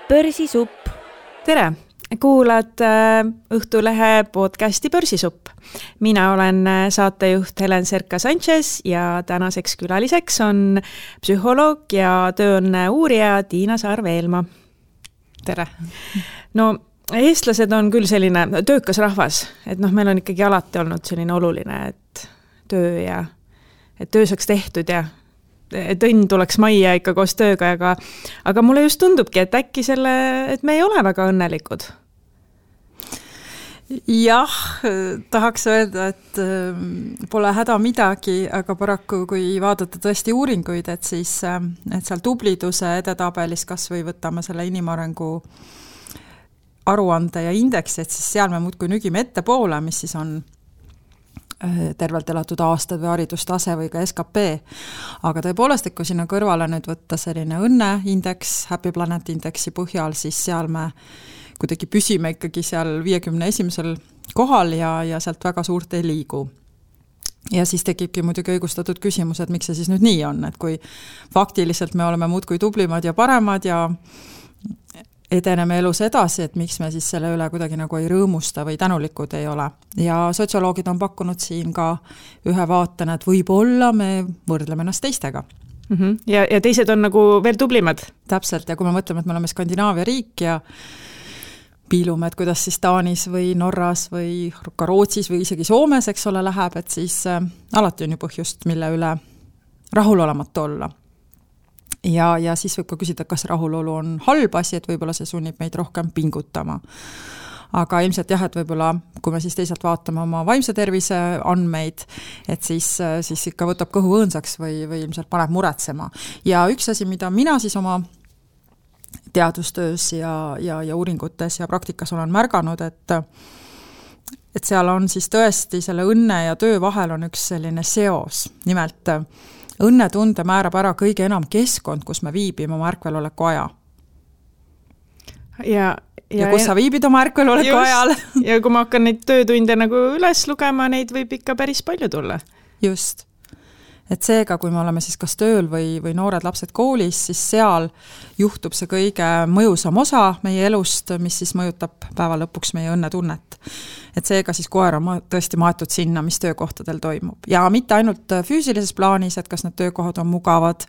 Börsisupp. Tere! Kuulad Õhtulehe podcasti Börsisupp. Mina olen saatejuht Helen Serka-Sanchez ja tänaseks külaliseks on psühholoog ja tööõnne uurija Tiina Saar-Veelma. Tere! No, eestlased on küll selline töökas rahvas, et meil on ikkagi alati olnud selline oluline, et töö saaks tehtud ja et õnn tuleks majja ikka koos tööga, aga mulle just tundubki, et äkki et me ei ole väga õnnelikud. Jah, tahaks öelda, et pole häda midagi, aga paraku kui vaadata tõesti uuringuid, et seal tubliduse edetabelis kas või võtame selle inimarengu aruande ja indeksi, et siis seal me muudkui nügime ettepoole, mis siis on tervelt elatud aastad või haridustase või ka SKP. Aga tõepoolest, kui sinna kõrvale nüüd võtta selline õnneindeks, Happy Planet indeksi põhjal, siis seal me kuidagi püsime ikkagi seal 51. kohal ja sealt väga suurt ei liigu. Ja siis tekibki muidugi õigustatud küsimus, et miks see siis nüüd nii on, et kui faktiliselt me oleme muudkui tublimad ja paremad ja edeneme elus edasi, et miks me siis selle üle kuidagi nagu ei rõõmusta või tänulikud ei ole. Ja sotsioloogid on pakkunud siin ka ühe vaatena, et võib-olla me võrdleme ennast teistega. Ja teised on nagu veel tublimad. Täpselt, ja kui me mõtleme, et me oleme Skandinaavia riik ja piilume, et kuidas siis Taanis või Norras või ka Rootsis või isegi Soomes, eks ole, läheb, et siis alati on ju põhjust, mille üle rahulolematu olla. Ja siis võib ka küsida, kas rahulolu on halb asi, et võib-olla see sunnib meid rohkem pingutama. Aga ilmselt jah, et võib-olla, kui me siis teisalt vaatame oma vaimse tervise andmeid, et siis ikka võtab kõhu õõnsaks või ilmselt paneb muretsema. Ja üks asi, mida mina siis oma teadustöös ja uuringutes ja praktikas olen märganud, et seal on siis tõesti selle õnne ja töö vahel on üks selline seos. Nimelt õnnetunde määrab ära kõige enam keskkond, kus me viibime oma ärkveloleku aja. Ja kus sa viibid oma ärkveloleku ajal. Ja kui ma hakkan neid töötunde nagu üles lugema, neid võib ikka päris palju tulla. Just. Et seega, kui me oleme siis kas tööl või noored lapsed koolis, siis seal juhtub see kõige mõjusam osa meie elust, mis siis mõjutab päeva lõpuks meie õnnetunnet. Et seega siis koer on tõesti maetud sinna, mis töökohtadel toimub. Ja mitte ainult füüsilises plaanis, et kas need töökohad on mugavad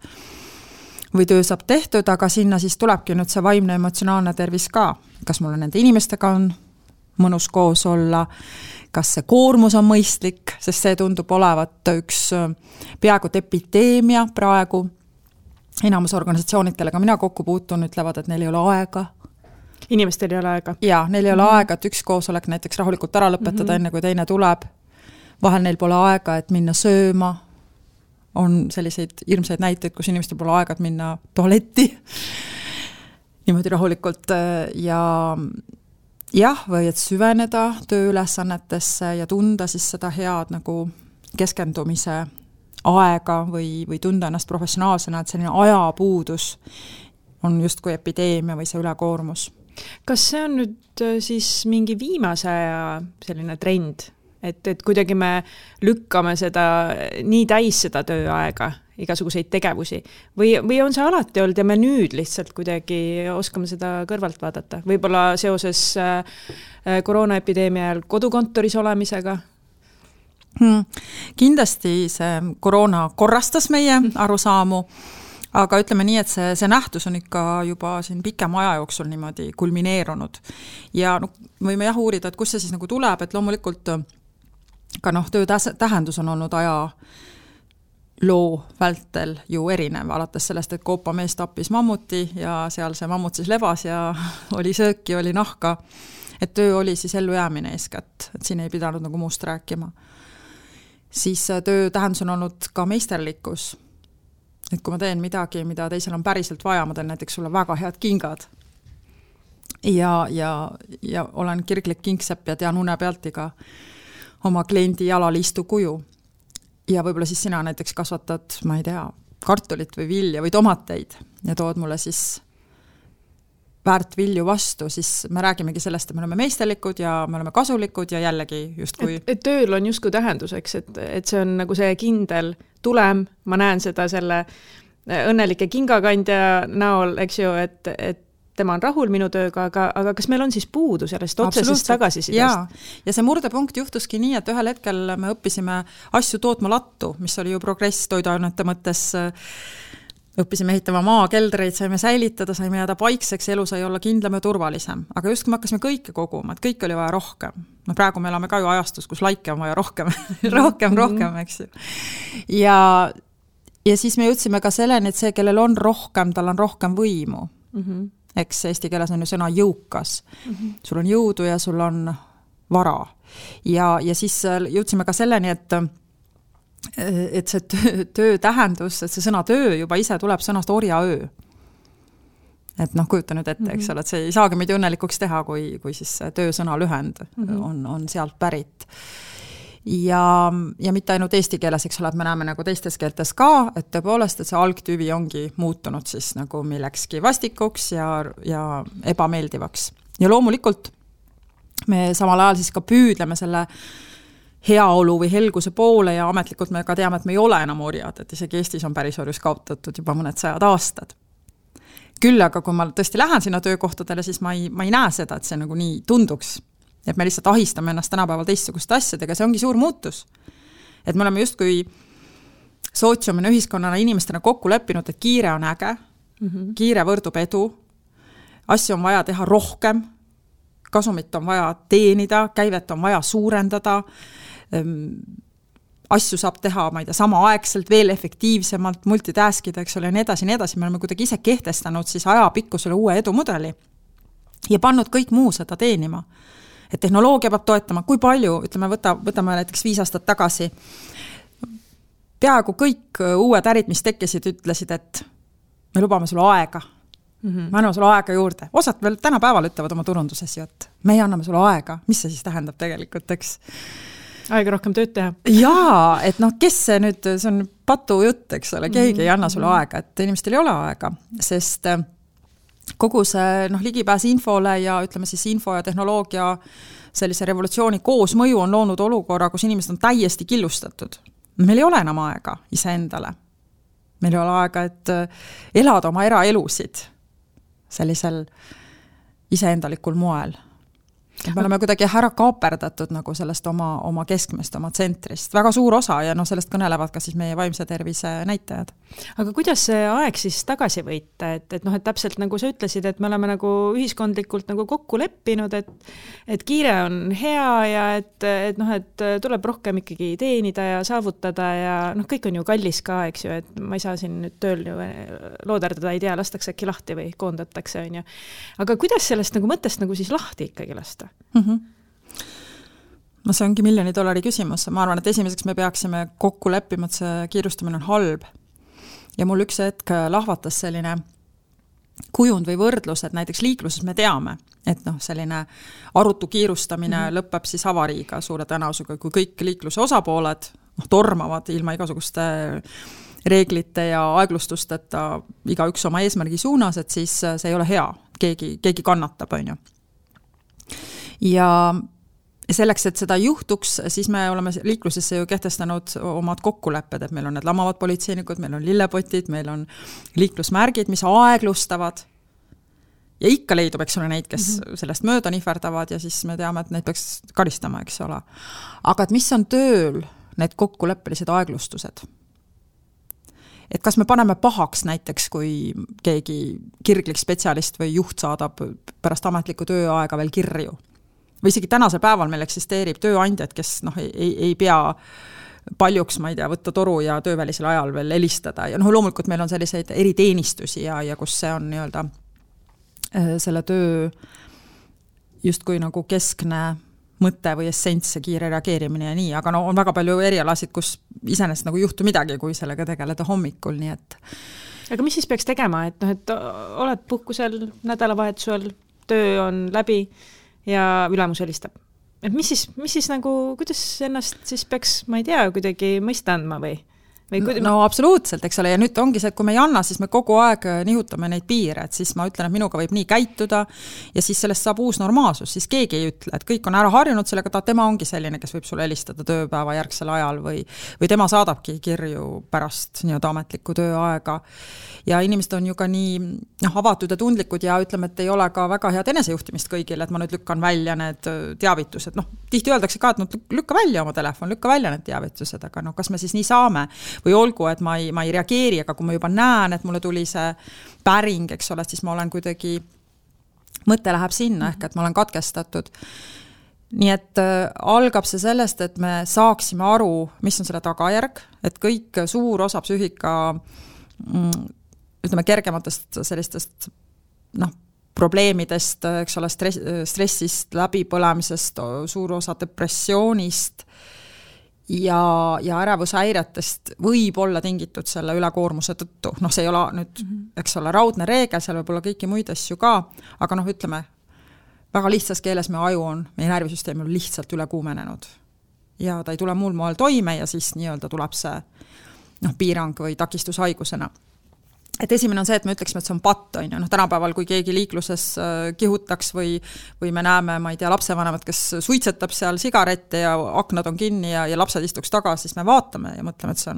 või töö saab tehtud, aga sinna siis tulebki nüüd see vaimne emotsionaalne tervis ka. Kas mulle nende inimestega on mõnus koos olla, kas see koormus on mõistlik, sest see tundub olevat üks peaaegu epideemia praegu. Enamus organisatsioonid, kellega mina kokku puutun, ütlevad, et neil ei ole aega. Inimestel ei ole aega. Jaa, neil ei ole aega, et üks koosolek näiteks rahulikult ära lõpetada enne, kui teine tuleb. Vahel neil pole aega, et minna sööma. On selliseid hirmsaid näiteid, kus inimestel pole aega, et minna tualetti. Niimoodi rahulikult jah, või et süveneda tööülesannetesse ja tunda siis seda head nagu keskendumise aega või tunda ennast professionaalsena, et selline ajapuudus on justkui epideemia või see ülekoormus. Kas see on nüüd siis mingi viimase aja selline trend, et kuidagi me lükkame seda nii täis seda tööaega, igasuguseid tegevusi või on see alati olnud ja me nüüd lihtsalt kuidagi oskame seda kõrvalt vaadata? Võib-olla seoses koroonaepideemia ajal kodukontoris olemisega? Kindlasti see koroona korrastas meie arusaamu, aga ütleme nii, et see nähtus on ikka juba siin pikem aja jooksul niimoodi kulmineerunud. Ja võime jah uurida, et kus see siis nagu tuleb, et loomulikult ka töö tähendus on olnud aja loo vältel ju erinev, alates sellest, et Koopa mees tappis mammuti ja seal see mammut siis lebas ja oli sööki, oli nahka, et töö oli siis ellujäämine eeskätt, et siin ei pidanud nagu muust rääkima. Siis töö tähendus on olnud ka meisterlikkus, et kui ma teen midagi, mida teisel on päriselt vaja, ma teen näiteks sulle väga head kingad ja olen kirglik kingsepp ja tean une pealt iga oma kliendi jalaliistu kuju. Ja võib-olla siis sina näiteks kasvatad, ma ei tea, kartulit või vilja või tomateid ja tood mulle siis väärt vilju vastu, siis me räägimegi sellest, et me oleme meisterlikud ja me oleme kasulikud ja jällegi justkui... Et tööl on justkui tähenduseks, et see on nagu see kindel tulem, ma näen seda selle õnnelike kingakandja näol, eks ju, et tema on rahul minu tööga, aga kas meil on siis puudu sellest otsesest tagasisidest? Ja see murdepunkt juhtuski nii, et ühel hetkel me õppisime asju tootma lattu, mis oli ju progress toiduainete mõttes, õppisime ehitama maakeldreid, saime säilitada, saime jääda paikseks, elu sai olla kindlam ja turvalisem. Aga just kui me hakkasime kõike koguma, et kõik oli vaja rohkem. No praegu me elame ka ju ajastus, kus laike on vaja rohkem, rohkem, eks ju. Ja siis me jõudsime ka selleni, et see, kellel on rohkem, tal on rohkem võimu. Eks eesti keeles on ju sõna jõukas. Sul on jõudu ja sul on vara. Ja siis jõudsime ka selleni, et see töö tähendus, et see sõna töö juba ise tuleb sõnast orjaöö. Et kujuta nüüd ette, eks ole, et see ei saagi meid õnnelikuks teha, kui siis töösõna lühend on sealt pärit. Ja mitte ainult eesti keeles, eks ole, et me näeme nagu teistes keeltes ka, et tõepoolest, et see algtüvi ongi muutunud siis nagu millekski vastikuks ja ebameeldivaks. Ja loomulikult me samal ajal siis ka püüdleme selle heaolu või helguse poole ja ametlikult me ka teame, et me ei ole enam orjad, et isegi Eestis on pärisorjus kaotatud juba mõned 100 aastad. Küll aga kui ma tõesti lähen sinna töökohtadele, siis ma ei näe seda, et see nagu nii tunduks. Et me lihtsalt ahistame ennast tänapäeval teistsuguste asjadega, see ongi suur muutus. Et me oleme justkui sootsiumina, ühiskonnana, inimestena kokku leppinud, et kiire on äge, kiire võrdub edu, asju on vaja teha rohkem, kasumit on vaja teenida, käivet on vaja suurendada, asju saab teha, ma ei tea, samaaegselt, veel efektiivsemalt, multitaskida, eks ole, ja nii edasi, me oleme kuidagi ise kehtestanud siis ajapikkusele uue edumudeli ja pannud kõik muu seda teenima. Et tehnoloogia peab toetama, kui palju, ütleme, võtame näiteks 5 aastat tagasi, peaaegu kõik uued ärid, mis tekkisid, ütlesid, et me lubame sulle aega. Me anname sulle aega juurde. Osad veel tänapäeval ütlevad oma turunduses ju, et me anname sulle aega. Mis see siis tähendab tegelikult, eks? Aega rohkem tööd teha. Jaa, et kes see nüüd, see on patu jutt, eks ole, keegi ei anna sulle aega, et inimestel ei ole aega, sest kogu see ligipääs infole ja ütleme siis info ja tehnoloogia sellise revolutsiooni koosmõju on loonud olukorra, kus inimesed on täiesti killustatud. Meil ei ole enam aega iseendale. Meil ei ole aega, et elada oma eraelusid sellisel iseendalikul moel. Me oleme kuidagi ära kaaperdatud nagu sellest oma keskmest, oma tsentrist. Väga suur osa ja sellest kõnelevad ka siis meie vaimse tervise näitajad. Aga kuidas see aeg siis tagasi võita? Et täpselt nagu sa ütlesid, et me oleme nagu ühiskondlikult nagu kokku leppinud, et kiire on hea ja et tuleb rohkem ikkagi teenida ja saavutada ja kõik on ju kallis ka, eks ju, et ma ei saa siin nüüd tööl ju looderdada, ei tea, lastakse äkki lahti või koondatakse, on ju. Aga kuidas sellest nagu mõttest nagu siis lahti ikkagi lasta? No see ongi $1 miljoni küsimus. Ma arvan, et esimeseks me peaksime kokku leppima, et see kiirustamine on halb. Ja mul üks hetk lahvatas selline kujund või võrdlus, et näiteks liikluses me teame, et selline arutu kiirustamine lõpeb siis avariiga suure tõenäosusega, kui kõik liikluse osapooled tormavad ilma igasuguste reeglite ja aeglustusteta igaüks oma eesmärgi suunas, et siis see ei ole hea. Keegi kannatab, on ju. Ja selleks, et seda juhtuks, siis me oleme liiklusesse ju kehtestanud omad kokkulepped, et meil on need lamavad politseinikud, meil on lillepotid, meil on liiklusmärgid, mis aeglustavad. Ja ikka leidub, eks ole, neid, kes sellest mööda nihverdavad ja siis me teame, et neid peaks karistama, eks ole. Aga et mis on tööl need kokkuleppelised aeglustused? Et kas me paneme pahaks näiteks, kui keegi kirglik spetsialist või juht saadab pärast ametlikku tööaega veel kirju? Või isegi tänasel päeval meil eksisteerib tööandjad, kes ei pea paljuks, ma ei tea, võtta toru ja töövälisel ajal veel helistada. Ja loomulikult meil on selliseid eriteenistusi ja kus see on nii-öelda selle töö justkui nagu keskne mõte või essents ja kiire reageerimine ja nii, aga on väga palju erialasid, kus iseenesest nagu juhtu midagi, kui sellega tegeleda hommikul, nii et. Aga mis siis peaks tegema, et oled puhkusel nädalavahetusel, töö on läbi ja ülemus helistab. Et mis siis nagu, kuidas ennast siis peaks, ma ei tea, kuidagi mõista andma või? No absoluutselt, eks ole, ja nüüd ongi see, et kui me ei anna, siis me kogu aeg nihutame neid piire, et siis ma ütlen, et minuga võib nii käituda ja siis sellest saab uus normaalsus, siis keegi ei ütle, et kõik on ära harjunud sellega, tema ongi selline, kes võib sulle helistada tööpäeva järgsel ajal või tema saadabki kirju pärast nii-öelda ametlikku tööaega. Ja inimesed on ju ka nii avatud ja tundlikud ja ütleme, et ei ole ka väga head enesejuhtimist kõigile, et ma nüüd lükkan välja need teavitused. Tihti öeldakse ka, et lükka välja oma telefon, lükka välja need teavitused, aga kas me siis nii saame? Või olgu, et ma ei reageeri, aga kui ma juba näen, et mulle tuli see päring, eks ole, siis ma olen kuidagi, mõte läheb sinna, ehk et ma olen katkestatud. Nii et algab see sellest, et me saaksime aru, mis on selle tagajärg, et kõik suur osa psüühika, ütleme, kergematest sellistest probleemidest, eks ole, stressist, läbipõlemisest, suur osa depressioonist ja ärevushäiretest võib olla tingitud selle ülekoormuse tõttu. See ei ole nüüd, eks ole, raudne reegel, seal võib olla kõiki muid asju ka, aga ütleme, väga lihtsas keeles meie aju on, meie närvisüsteem on lihtsalt üle kuumenenud. Ja ta ei tule muul moel toime ja siis nii-öelda tuleb see piirang või takistushaigusena. Et esimene on see, et me ütleksime, et see on patt, tänapäeval, kui keegi liikluses kihutaks või me näeme, ma ei tea, lapsevanemat, kes suitsetab seal sigarette ja aknad on kinni ja lapsed istuks tagasi, siis me vaatame ja mõtleme, et see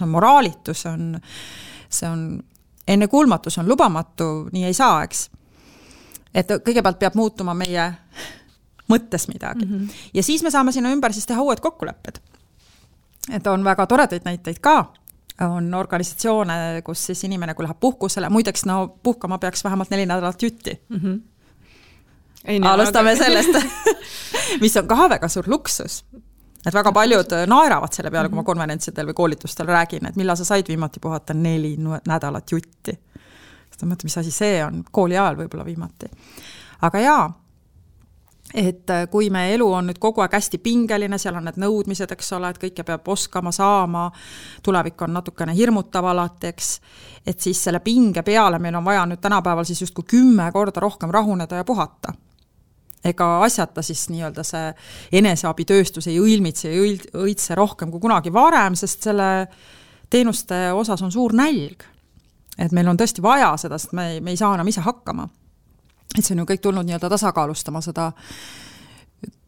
on moraalitu, see on ennekuulmatu, see on lubamatu, nii ei saa, eks. Et kõigepealt peab muutuma meie mõttes midagi. Ja siis me saame sinna ümber siis teha uued kokkulepped. Et on väga toredaid näiteid ka. On organisatsioone, kus siis inimene, kui läheb puhkusele, muideks puhkama peaks vähemalt 4 nädalat jutti. Alustame sellest, mis on ka väga suur luksus. Et väga paljud naeravad selle peale, kui ma konverentsidel või koolitustel räägin, et millal sa said viimati puhata 4 nädalat jutti. Seda mõtled, mis asi see on, kooli ajal võib-olla viimati. Aga jaa, et kui me elu on nüüd kogu aeg hästi pingeline, seal on need nõudmised, eks ole, et kõike peab oskama, saama, tulevik on natukene hirmutav alateks, et siis selle pinge peale meil on vaja nüüd tänapäeval siis justkui 10 korda rohkem rahuneda ja puhata. Ega asjata siis nii-öelda see eneseabitööstus ei õilmitse ja õitse rohkem kui kunagi varem, sest selle teenuste osas on suur nälg. Et meil on tõesti vaja seda, sest me ei saa enam ise hakkama. Et see on ju kõik tulnud nii-öelda tasakaalustama seda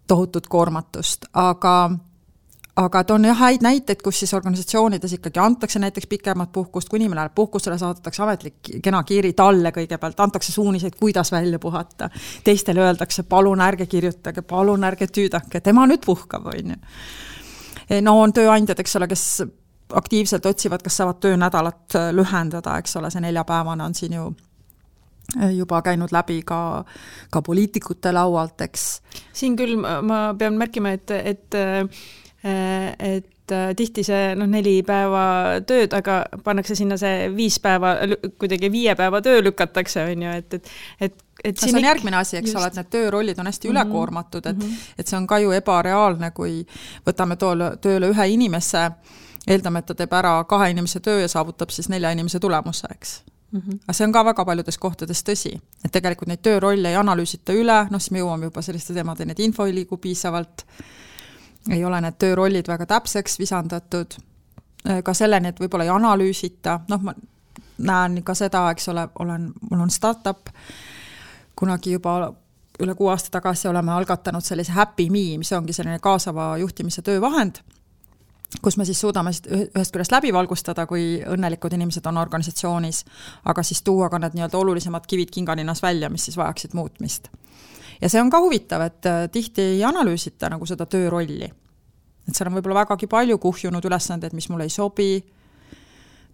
tohutut koormatust, aga et on häid näiteid, kus siis organisatsioonides ikkagi antakse näiteks pikemat puhkust, kui inimene läheb puhkusele, saadetakse ametlik kena kiri talle kõigepealt, antakse suuniseid, kuidas välja puhata. Teistele öeldakse, palun ärge kirjutage, palun ärge tüüdake, tema nüüd puhkab, on ju. On tööandjad, eks ole, kes aktiivselt otsivad, kas saavad töönädalat lühendada, eks ole, see 4-päevane on siin ju juba käinud läbi ka poliitikute laualt, eks. Siin küll ma pean märkima, et tihti see 4 päeva tööd, aga pannakse sinna see 5 päeva, kuidagi 5 päeva töö lükatakse, on ju, et see on järgmine asi, eks ole, et need töörollid on hästi ülekoormatud, et see on ka ju ebareaalne, kui võtame tööle 1 inimese, eeldame, et ta teeb ära 2 inimese töö ja saavutab siis 4 inimese tulemuse, eks. Aga see on ka väga paljudes kohtades tõsi, et tegelikult neid töörolle ei analüüsita üle, siis me jõuame juba selliste teemadeni, et info ei liigu piisavalt, ei ole need töörollid väga täpseks visandatud, ka selleni, et võib-olla ei analüüsita, ma näen ka seda, eks ole, mul on startup, kunagi juba üle 6 aasta tagasi oleme algatanud sellise Happy Me, mis ongi selline kaasava juhtimise töövahend, kus me siis suudame ühest küljest läbi valgustada, kui õnnelikud inimesed on organisatsioonis, aga siis tuua ka need nii-öelda olulisemad kivid kinganinnas välja, mis siis vajaksid muutmist. Ja see on ka huvitav, et tihti ei analüüsita nagu seda töörolli. Et seal on võib-olla vägagi palju kuhjunud ülesandeid, mis mulle ei sobi,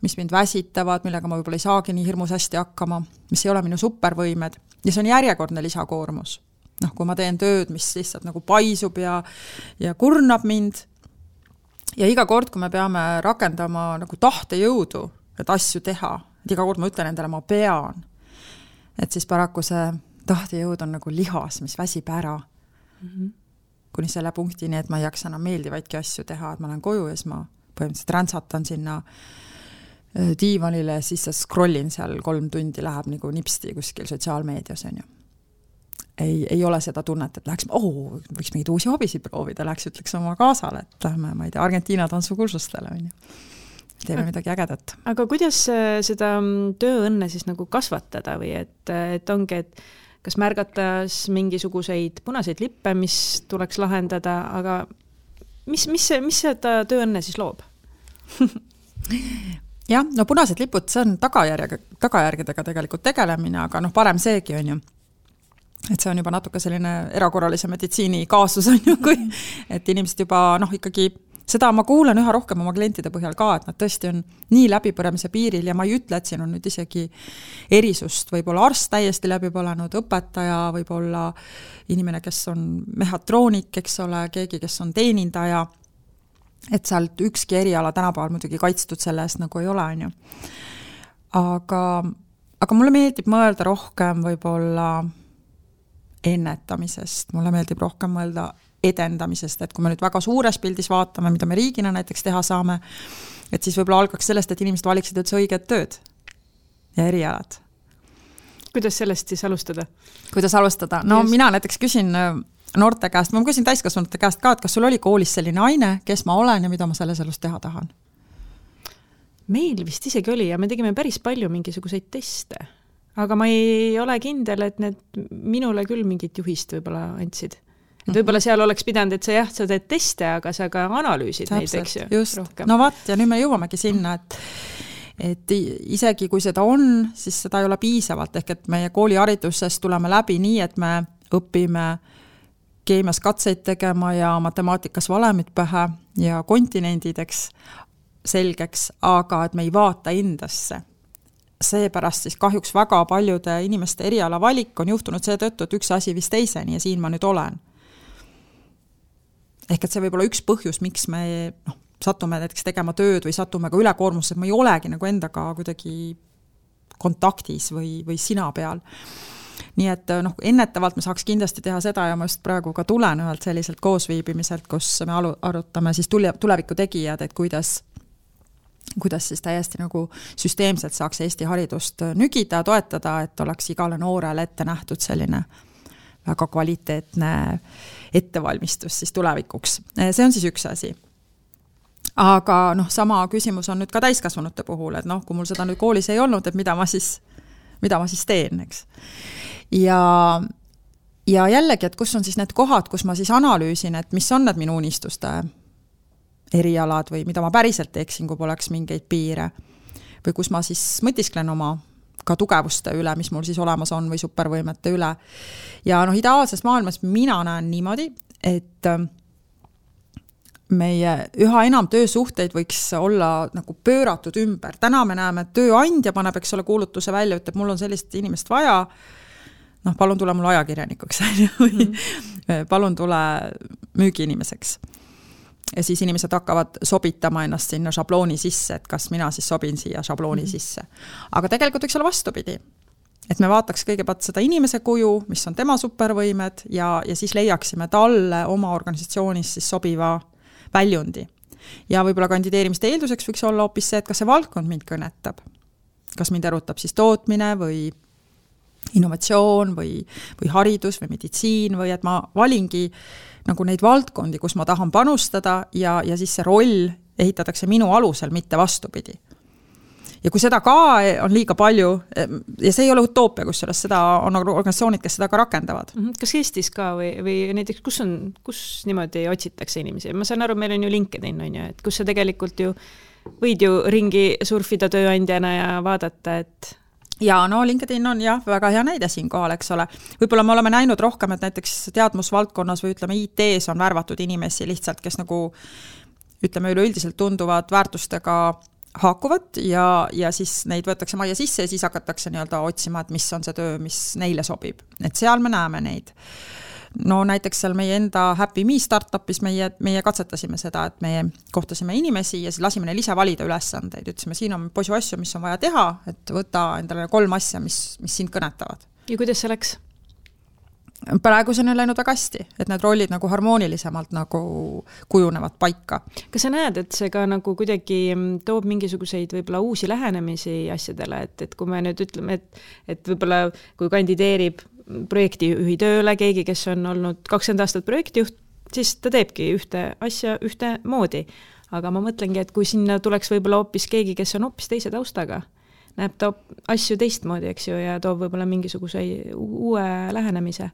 mis mind väsitavad, millega ma võib-olla ei saagi nii hirmus hästi hakkama, mis ei ole minu supervõimed. Ja see on järjekordne lisakoormus. Kui ma teen tööd, mis lihtsalt nagu paisub ja kurnab mind, ja iga kord, kui me peame rakendama nagu tahtejõudu, et asju teha, et iga kord ma ütlen endale, ma pean, et siis paraku see tahtejõud on nagu lihas, mis väsib ära. Kuni selle punktini, et ma ei jaksa enam meeldivaidki asju teha, et ma olen koju ja siis ma põhimõtteliselt räntsatan sinna diivanile, siis scrollin seal 3 tundi, läheb nagu nipsti kuskil sotsiaalmeedias, on ju. Ei ole seda tunnet, et läheks, võiks mingid uusi hobisid proovida, läheks ütleks oma kaasale, et lähme, ma ei tea, Argentiina tantsukursustele, on ju. teeme midagi ägedat. Aga kuidas seda tööõnne siis nagu kasvatada või et ongi, et kas märgatas mingisuguseid punaseid lippe, mis tuleks lahendada, aga mis seda tööõnne siis loob? Jah, no punased lipud, see on tagajärgedega tegelikult tegelemine, aga parem seegi on ju. Et see on juba natuke selline erakorralise meditsiini kaasus on ju, kui et inimesed juba ikkagi seda ma kuulen üha rohkem oma klientide põhjal ka, et nad tõesti on nii läbipõremise piiril ja ma ei ütle, et siin on nüüd isegi erisust, võib-olla arst täiesti läbi põlenud, õpetaja, võib-olla inimene, kes on mehhatroonik, eks ole, keegi, kes on teenindaja, et sealt ükski eriala tänapäeval muidugi kaitstud selle eest nagu ei ole, on ju. Aga mulle meeldib mõelda rohkem võib-olla ennetamisest, mulle meeldib rohkem mõelda edendamisest, et kui me nüüd väga suures pildis vaatame, mida me riigina näiteks teha saame, et siis võib-olla algaks sellest, et inimesed valiksid üldse õiged tööd ja erialad. Kuidas sellest siis alustada? Kuidas alustada? No just. Mina näiteks küsin noorte käest, ma küsin täiskasvanute käest ka, et kas sul oli koolis selline aine, kes ma olen ja mida ma selles elus teha tahan? Meil vist isegi oli ja me tegime päris palju mingisuguseid teste, aga ma ei ole kindel, et need minule küll mingit juhist võib-olla andsid. Et võib-olla seal oleks pidanud, et sa teed teste, aga sa ka analüüsid neid, eks ju, just. Rohkem. No vaat, ja nüüd me jõuamegi sinna, et isegi kui seda on, siis seda ei ole piisavalt, ehk et meie koolihariduses tuleme läbi nii, et me õpime keemias katseid tegema ja matemaatikas valemid pähe ja kontinendideks selgeks, aga et me ei vaata endasse. Seepärast siis kahjuks väga paljude inimeste eriala valik on juhtunud seetõttu, et üks asi vist teiseni ja siin ma nüüd olen. Ehk et see võib olla üks põhjus, miks me satume näiteks tegema tööd või satume ka ülekoormusse, et ma ei olegi nagu endaga kuidagi kontaktis või sina peal. Nii et ennetavalt me saaks kindlasti teha seda ja ma just praegu ka tulen ühelt selliselt koosviibimiselt, kus me arutame siis tuleviku tegijad, et kuidas siis täiesti nagu süsteemselt saaks Eesti haridust nügida, toetada, et oleks igale noorele ette nähtud selline väga kvaliteetne ettevalmistus siis tulevikuks. See on siis üks asi. Aga sama küsimus on nüüd ka täiskasvanute puhul, et kui mul seda nüüd koolis ei olnud, et mida ma siis teen, eks. Ja jällegi, et kus on siis need kohad, kus ma siis analüüsin, et mis on need minu unistuste erialad või mida ma päriselt teeksin, kui poleks mingeid piire. Või kus ma siis mõtisklen oma ka tugevuste üle, mis mul siis olemas on või supervõimete üle. Ja ideaalses maailmas mina näen niimoodi, et meie üha enam töösuhteid võiks olla nagu pööratud ümber. Täna me näeme, et tööandja paneb, eks ole, kuulutuse välja, ütleb, mul on sellist inimest vaja, palun tule mul ajakirjanikuks, palun tule müügiinimeseks. Ja siis inimesed hakkavad sobitama ennast sinna šablooni sisse, et kas mina siis sobin siia šablooni sisse. Aga tegelikult võiks olla vastupidi. Et me vaataks kõigepealt seda inimese kuju, mis on tema supervõimed ja siis leiaksime talle oma organisatsioonis siis sobiva väljundi. Ja võib-olla kandideerimiste eelduseks võiks olla hoopis see, et kas see valdkond mind kõnetab. Kas mind erutab siis tootmine või innovatsioon või haridus või meditsiin või et ma valingi nagu neid valdkondi, kus ma tahan panustada ja siis see roll ehitatakse minu alusel, mitte vastupidi. Ja kui seda ka on liiga palju, ja see ei ole utoopia, kus seda on organisatsioonid, kes seda ka rakendavad. Kas Eestis ka või näiteks, kus niimoodi otsitakse inimesi? Ma saan aru, meil on ju LinkedIn, on ju, et kus sa tegelikult ju võid ju ringi surfida tööandjana ja vaadata, et ja LinkedIn on jah, väga hea näide siin kohal, eks ole. Võib-olla me oleme näinud rohkem, et näiteks teadmusvaldkonnas või ütleme IT-s on värvatud inimesi lihtsalt, kes nagu ütleme üleüldiselt tunduvad väärtustega haakuvad ja siis neid võetakse majja sisse ja siis hakatakse nii-öelda otsima, et mis on see töö, mis neile sobib. Et seal me näeme neid. Näiteks seal meie enda Happy Me startupis meie katsetasime seda, et meie kohtasime inimesi ja siis lasime neil ise valida ülesandeid. Ütlesime, siin on posu asju, mis on vaja teha, et võta endale 3 asja, mis sind kõnetavad. Ja kuidas see läks? Praegu see on läinud väga hästi, et need rollid nagu harmoonilisemalt nagu kujunevad paika. Kas sa näed, et see ka nagu kuidagi toob mingisuguseid võib-olla uusi lähenemisi asjadele, et kui me nüüd ütleme, et võib-olla kui kandideerib projektijuhi tööle keegi, kes on olnud 20 aastat projektijuht, siis ta teebki ühte asja ühte moodi. aga ma mõtlengi, et kui sinna tuleks võib-olla hoopis keegi, kes on hoopis teise taustaga, näeb ta asju teistmoodi, eks ju, ja toob võib-olla mingisuguse uue lähenemise.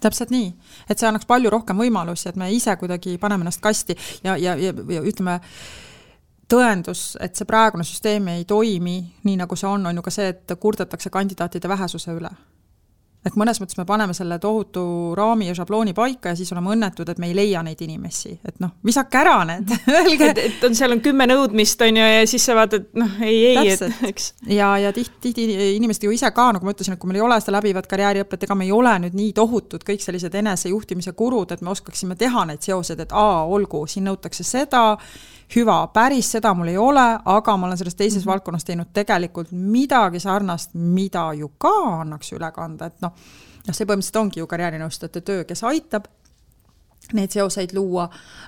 Täpselt nii, et see annaks palju rohkem võimalusi, et me ise kuidagi paneme ennast kasti ja ütleme, tõendus, et see praegune süsteem ei toimi nii, nagu see on ju ka see, et kurdetakse kandidaatide vähesuse üle. Et mõnes mõttes me paneme selle tohutu raami ja šablooni paika ja siis oleme õnnetud, et me ei leia neid inimesi. Et visake ära need. et seal on 10 nõudmist on ju, ja siis sa vaatad, ei, eks. Ja tihti inimesed ju ise ka, nagu ma ütlesin, et kui meil ei ole seda läbivat karjääriõpet, ega me ei ole nüüd nii tohutud kõik sellised enesejuhtimise kurud, et me oskaksime teha neid seosed, et olgu, siin nõutakse seda, hüva, päris seda mul ei ole, aga ma olen selles teises valdkonnas teinud tegelikult midagi sarnast, mida ju ka annaks üle kanda, et see põhimõtteliselt ongi ju karjäärinõustajate töö, kes aitab neid seoseid luua,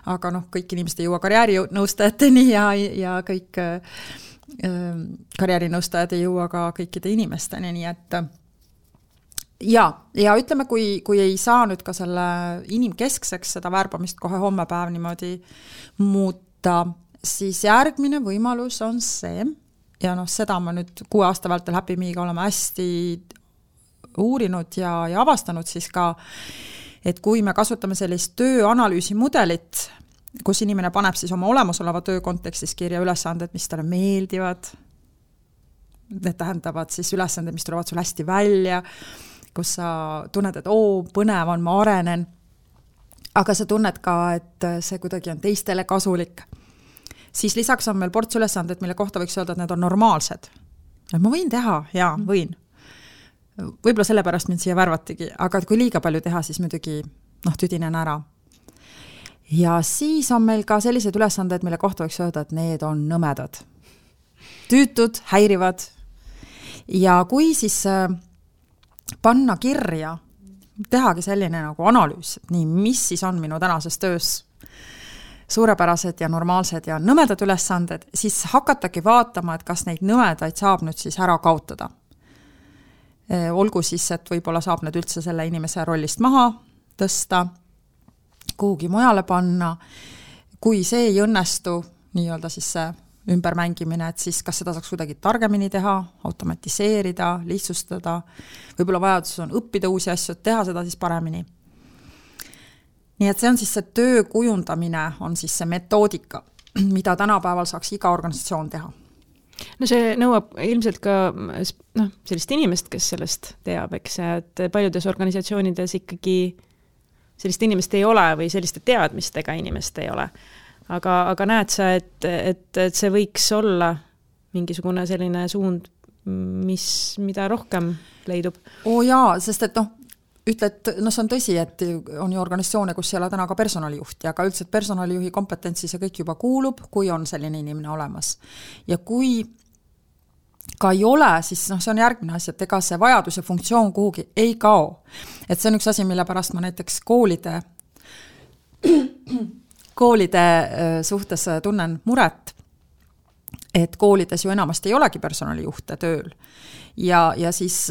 aga kõik inimesed ei jõua karjäärinõustajateni ja kõik karjäärinõustajad ei jõua ka kõikide inimesteni, nii et ja ütleme, kui ei saa nüüd ka selle inimkeskseks seda värbamist kohe hommepäev niimoodi muuta, siis järgmine võimalus on see, ja seda ma nüüd 6 aasta vältel Happy Me'iga oleme hästi uurinud ja avastanud siis ka, et kui me kasutame sellist tööanalüüsi mudelit, kus inimene paneb siis oma olemasoleva töö kontekstis kirja ülesanded, mis talle meeldivad, need tähendavad siis ülesanded, mis tulevad sul hästi välja, kus sa tunned, et põnev on, ma arenen, aga sa tunned ka, et see kuidagi on teistele kasulik. Siis lisaks on meil ports ülesanded, mille kohta võiks öelda, et need on normaalsed. Et ma võin teha, jaa, võin. Võib-olla sellepärast mind siia värvatigi, aga kui liiga palju teha, siis muidugi tüdinen ära. Ja siis on meil ka sellised ülesanded, mille kohta võiks öelda, et need on nõmedad. Tüütud, häirivad. Ja kui siis panna kirja, tehagi selline nagu analüüs, et nii, mis siis on minu tänases töös suurepärased ja normaalsed ja nõmedad ülesanded, siis hakatagi vaatama, et kas neid nõmedaid saab nüüd siis ära kaotada. Olgu siis, et võib-olla saab need üldse selle inimese rollist maha tõsta, kuhugi mujale panna. Kui see ei õnnestu, nii-öelda siis see ümbermängimine, et siis kas seda saaks kuidagi targemini teha, automatiseerida, lihtsustada, võib-olla vajadus on õppida uusi asju, teha seda siis paremini. Nii et see on siis see töö kujundamine, on siis see metoodika, mida tänapäeval saaks iga organisatsioon teha. No see nõuab ilmselt ka sellist inimest, kes sellest teab, eks, et paljudes organisatsioonides ikkagi sellist inimest ei ole või selliste teadmistega inimest ei ole. Aga näed sa, et see võiks olla mingisugune selline suund, mida rohkem leidub? Jaa, sest et ütled, see on tõsi, et on ju organisatsioone, kus ei ole täna ka personalijuhti, aga üldse personalijuhi kompetentsi see kõik juba kuulub, kui on selline inimene olemas. Ja kui ka ei ole, siis see on järgmine asi, et ega see vajadus ja funktsioon kuhugi ei kao. Et see on üks asi, mille pärast ma näiteks koolide suhtes tunnen muret, et koolides ju enamasti ei olegi personalijuhte tööl. Ja siis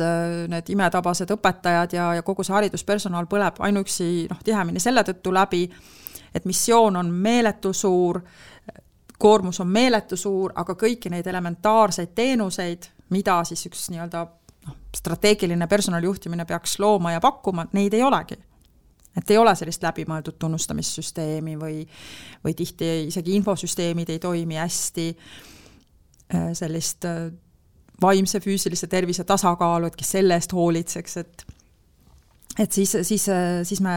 need imetabased õpetajad ja kogu see hariduspersonal põleb ainuüksi tihemini selle tõttu läbi, et missioon on meeletu suur, koormus on meeletu suur, aga kõiki neid elementaarseid teenuseid, mida siis üks nii-öelda strateegiline personalijuhtimine peaks looma ja pakkuma, neid ei olegi. Et ei ole sellist läbimõeldud tunnustamissüsteemi või tihti isegi infosüsteemid ei toimi hästi, sellist vaimse, füüsilise tervise tasakaalu, et kes selle eest hoolitseks, et siis me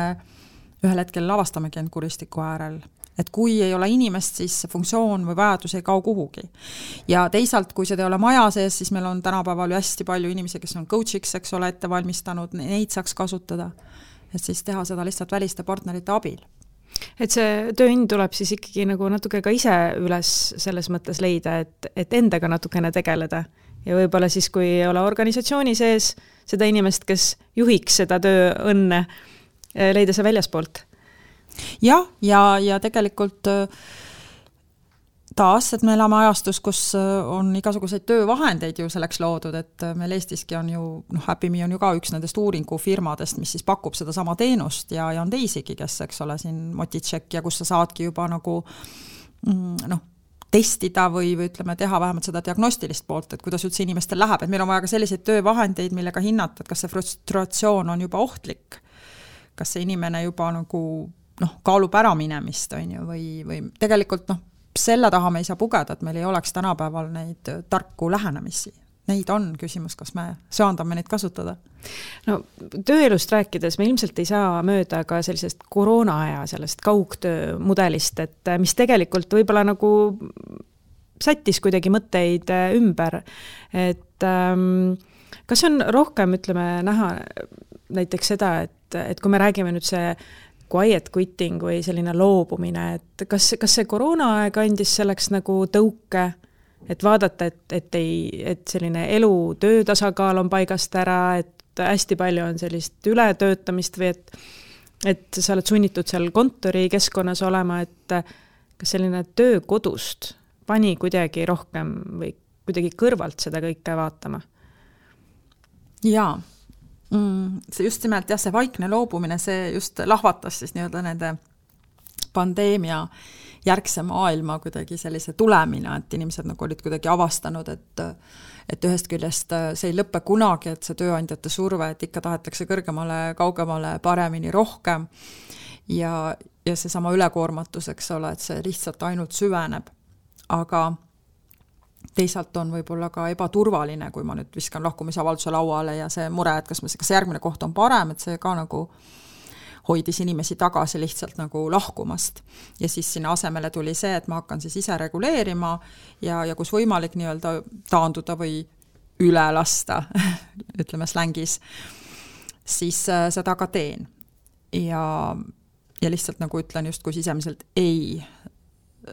ühel hetkel avastamegi end kuristiku äärel. Et kui ei ole inimest, siis funktsioon või vajadus ei kao kuhugi. Ja teisalt, kui seda ei ole maja sees, siis meil on tänapäeval ju hästi palju inimesi, kes on coachiks, eks ole, ette valmistanud, neid saaks kasutada. Et siis teha seda lihtsalt väliste partnerite abil. Et see tööind tuleb siis ikkagi nagu natuke ka ise üles selles mõttes leida, et endaga natukene tegeleda. Ja võib-olla siis, kui ei ole organisatsiooni sees seda inimest, kes juhiks seda tööõnne, leida see väljaspoolt. Ja tegelikult taas, et me elame ajastus, kus on igasuguseid töövahendeid ju selleks loodud, et meil Eestiski on ju, Happy Me on ju ka üks nendest uuringufirmadest, mis siis pakub seda sama teenust ja on teisigi, kes, eks ole, siin Motitšek ja kus sa saadki juba nagu testida või ütleme, teha vähemalt seda diagnostilist poolt, et kuidas üldse inimestel läheb, et meil on vaja ka selliseid töövahendeid, millega hinnata, et kas see frustratsioon on juba ohtlik, kas see inimene juba nagu kaalub ära minemist, on ju, või tegelikult selle taha me ei saa pugeda, et meil ei oleks tänapäeval neid tarku lähenemisi. Neid on küsimus, kas me söandame neid kasutada. No tööelust rääkides me ilmselt ei saa mööda ka sellisest koroonaaja, sellest kaugtöö mudelist, et mis tegelikult võib-olla nagu sättis kuidagi mõtteid ümber, et kas on rohkem, ütleme, näha näiteks seda, et kui me räägime nüüd see quiet quitting või selline loobumine, et kas see koroonaaeg andis selleks nagu tõuke, et vaadata, et selline elu töötasakaal on paigast ära, et hästi palju on sellist ületöötamist või et sa oled sunnitud seal kontori keskkonnas olema, et kas selline töö kodust pani kuidagi rohkem või kuidagi kõrvalt seda kõike vaatama? Jaa. See just nimelt, see vaikne loobumine, see just lahvatas siis nii-öelda nende pandeemia järgse maailma kuidagi sellise tulemina, et inimesed nagu olid kuidagi avastanud, et ühest küljest see ei lõppe kunagi, et see tööandjate surve, et ikka tahetakse kõrgemale, kaugemale, paremini, rohkem ja see sama ülekoormatus, eks ole, et see lihtsalt ainult süveneb. Aga teisalt on võib-olla ka ebaturvaline, kui ma nüüd viskan lahkumisavalduse lauale ja see mure, et kas järgmine koht on parem, et see ka nagu hoidis inimesi tagasi lihtsalt nagu lahkumast. Ja siis sinna asemele tuli see, et ma hakkan siis ise reguleerima ja kus võimalik nii-öelda taanduda või üle lasta, ütleme slängis, siis seda ka teen. Ja lihtsalt nagu ütlen just kui sisemiselt ei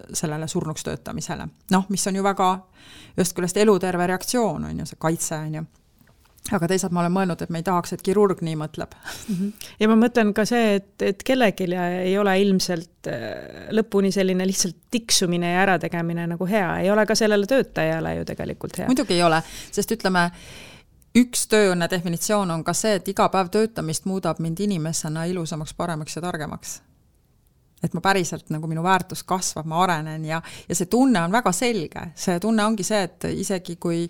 sellele surnuks töötamisele. Mis on ju väga just küljest eluterve reaktsioon, on ju, see kaitse, on ju. Aga teisalt ma olen mõelnud, et me ei tahaks, et kirurg nii mõtleb. Ja ma mõtlen ka see, et kellelgi ei ole ilmselt lõpuni selline lihtsalt tiksumine ja ärategemine nagu hea. Ei ole ka sellele töötajale ju tegelikult hea. Muidugi ei ole, sest ütleme, üks tööõnne definitsioon on ka see, et iga päev töötamist muudab mind inimesena ilusamaks, paremaks ja targemaks. Et ma päriselt, nagu minu väärtus kasvab, ma arenen ja see tunne on väga selge. See tunne ongi see, et isegi kui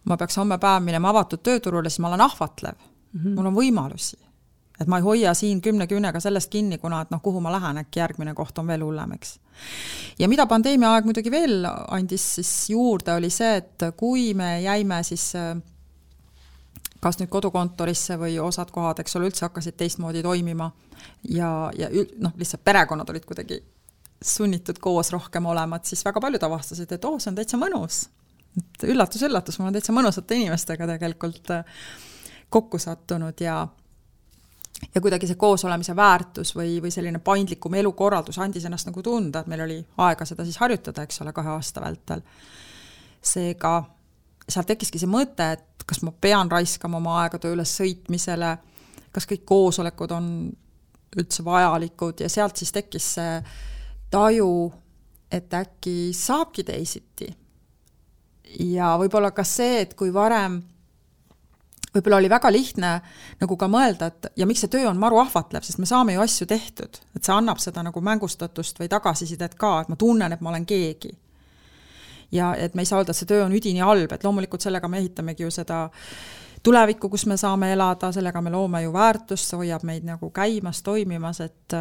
ma peaks homme päev minema avatud tööturule, siis ma olen ahvatlev. Mul on võimalusi. Et ma ei hoia siin 10 küünega sellest kinni, kuna et kuhu ma lähen, äkki järgmine koht on veel hullem, eks. Ja mida pandeemia aeg muidugi veel andis siis juurde, oli see, et kui me jäime siis kas nüüd kodukontorisse või osad kohad, eks ole, üldse hakkasid teistmoodi toimima ja lihtsalt perekonnad olid kuidagi sunnitud koos rohkem olema, et siis väga paljud avastasid, et see on täitsa mõnus. Üllatus, ma olen täitsa mõnusate inimestega tegelikult kokku sattunud ja kuidagi see koos olemise väärtus või selline paindlikum elukorraldus andis ennast nagu tunda, et meil oli aega seda siis harjutada, eks ole, 2 aasta vältel. Seega seal tekkiski see mõte, et kas ma pean raiskama oma aega töö üles sõitmisele, kas kõik koosolekud on üldse vajalikud ja sealt siis tekkis see taju, et äkki saabki teisiti. Ja võib-olla ka see, et kui varem võib-olla oli väga lihtne nagu ka mõelda, et ja miks see töö on maru ahvatlev, sest me saame ju asju tehtud, et see annab seda nagu mängustatust või tagasisidet ka, et ma tunnen, et ma olen keegi. Ja et me ei saa öelda, et see töö on üdini halb, et loomulikult sellega me ehitamegi ju seda tulevikku, kus me saame elada, sellega me loome ju väärtust, see hoiab meid nagu käimas, toimimas, et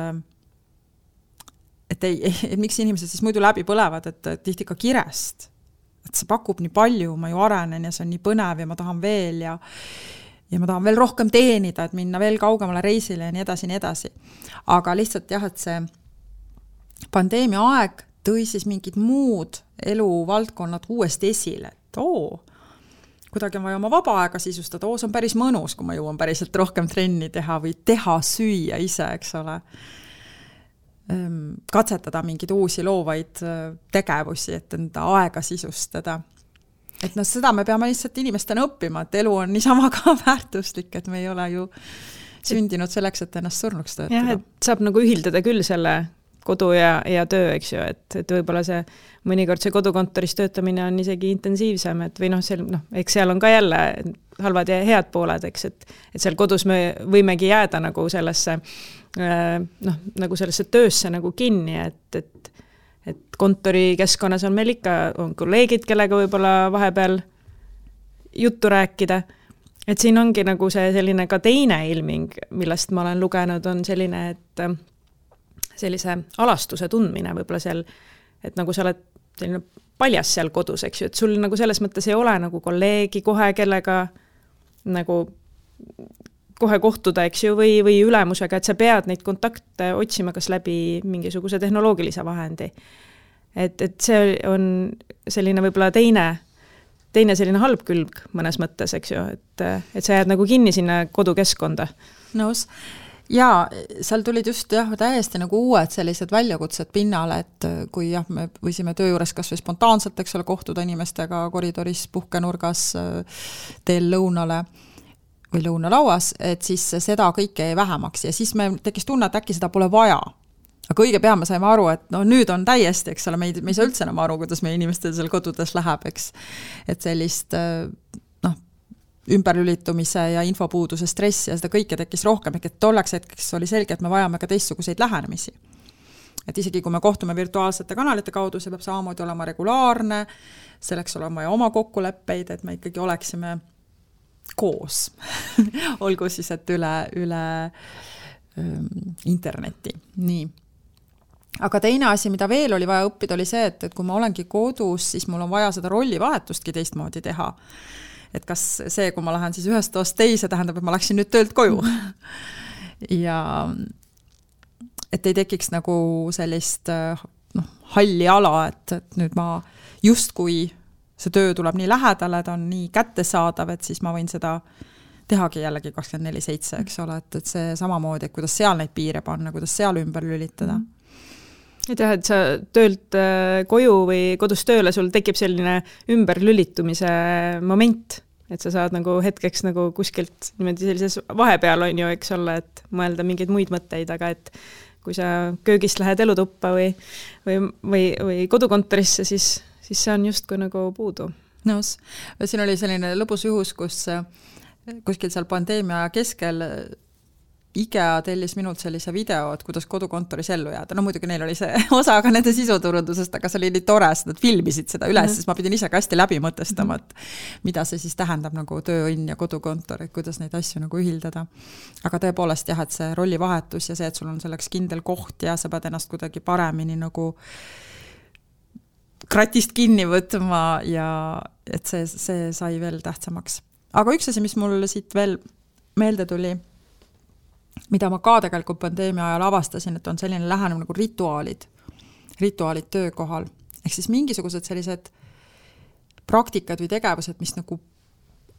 miks inimesed siis muidu läbi põlevad, et tihti ka kirest. Et see pakub nii palju, ma ju arenen ja see on nii põnev ja ma tahan veel ja ma tahan veel rohkem teenida, et minna veel kaugemale reisile ja nii edasi. Aga lihtsalt jah, et see pandeemia aeg tõi siis mingid muud eluvaldkonnad uuesti esile, et kuidagi on vaja oma vaba aega sisustada, see on päris mõnus, kui ma jõuan päriselt rohkem trenni teha või teha süüa ise, eks ole. Katsetada mingeid uusi loovaid tegevusi, et enda aega sisustada. Et seda me peame lihtsalt inimestena õppima, et elu on niisama ka väärtuslik, et me ei ole ju sündinud selleks, et ennast surnuks töötada. Jah, et saab nagu ühildada küll selle kodu ja töö, eks ju, et võib-olla see mõnikord see kodukontoris töötamine on isegi intensiivsem, et või eks seal on ka jälle halvad ja head pooled, eks, et seal kodus me võimegi jääda nagu sellesse töösse nagu kinni, et et kontorikeskkonnas on meil ikka on kolleegid, kellega võib-olla vahepeal juttu rääkida. Et siin ongi nagu see selline ka teine ilming, millest ma olen lugenud, on selline, et sellise alastuse tundmine võib-olla seal, et nagu sa oled selline paljas seal kodus, eks ju, et sul nagu selles mõttes ei ole nagu kolleegi kohe, kellega nagu kohe kohtuda, eks ju, või ülemusega, et sa pead neid kontakte otsima kas läbi mingisuguse tehnoloogilise vahendi. Et see on selline võib-olla teine selline halb külg mõnes mõttes, eks ju, et sa jääd nagu kinni sinna kodukeskkonda. Nõus. Ja seal tulid just täiesti nagu uued sellised väljakutsed pinnale, et kui me võisime töö juures kas või spontaanselt, eks ole, kohtuda inimestega koridoris, puhkenurgas, teel lõunale või lõunalauas, et siis seda kõike jäi vähemaks ja siis me tekkis tunne, et äkki seda pole vaja. Aga õige pea me saime aru, et nüüd on täiesti, eks ole, me ei saa üldse enam aru, kuidas meie inimestel seal kodudes läheb, eks. Et sellist ümberlülitumise ja infopuuduse stressi ja seda kõike tekkis rohkem, et tolleks hetkeks oli selge, et me vajame ka teistsuguseid lähenemisi. Et isegi kui me kohtume virtuaalsete kanalite kaudu, see peab samamoodi olema regulaarne, selleks olema ja oma kokkuleppeid, et me ikkagi oleksime koos. Olgu siis, et üle interneti. Nii. Aga teine asi, mida veel oli vaja õppida, oli see, et kui ma olengi kodus, siis mul on vaja seda rollivahetustki teistmoodi teha. Et kas see, kui ma lähen siis ühest toast teise, tähendab, et ma läksin nüüd töölt koju. Ja et ei tekiks nagu sellist halli ala, et nüüd ma justkui see töö tuleb nii lähedale, ta on nii kättesaadav, et siis ma võin seda tehagi jällegi 24/7, eks ole, et see samamoodi, et kuidas seal neid piire panna, kuidas seal ümber lülitada. Et jah, et sa töölt koju või kodus tööle, sul tekib selline ümberlülitumise moment, et sa saad nagu hetkeks nagu kuskilt niimoodi sellises vahepeal on ju, eks ole, et mõelda mingeid muid mõtteid, aga et kui sa köögist lähed elutuppa või kodukontorisse, siis see on justkui nagu puudu. Nõus. Siin oli selline lõbus juhus, kus kuskil seal pandeemia keskel IKEA tellis minult sellise video, et kuidas kodukontoris ellu jääda. No muidugi neil oli see osa ka nende sisuturundusest, aga see oli nii tore, et nad filmisid seda üles, siis ma pidin ise ka hästi läbi mõtestama, et mida see siis tähendab nagu tööõnn ja kodukontor, et kuidas neid asju nagu ühildada. Aga tõepoolest jah, et see rollivahetus ja see, et sul on selleks kindel koht ja sa pead ennast kuidagi paremini nagu kratist kinni võtma ja et see sai veel tähtsamaks. Aga üks asi, mis mul siit veel meelde tuli, mida ma ka tegelikult pandeemia ajal avastasin, et on selline lähenemine nagu rituaalid töökohal. Ehk siis mingisugused sellised praktikad või tegevused, mis nagu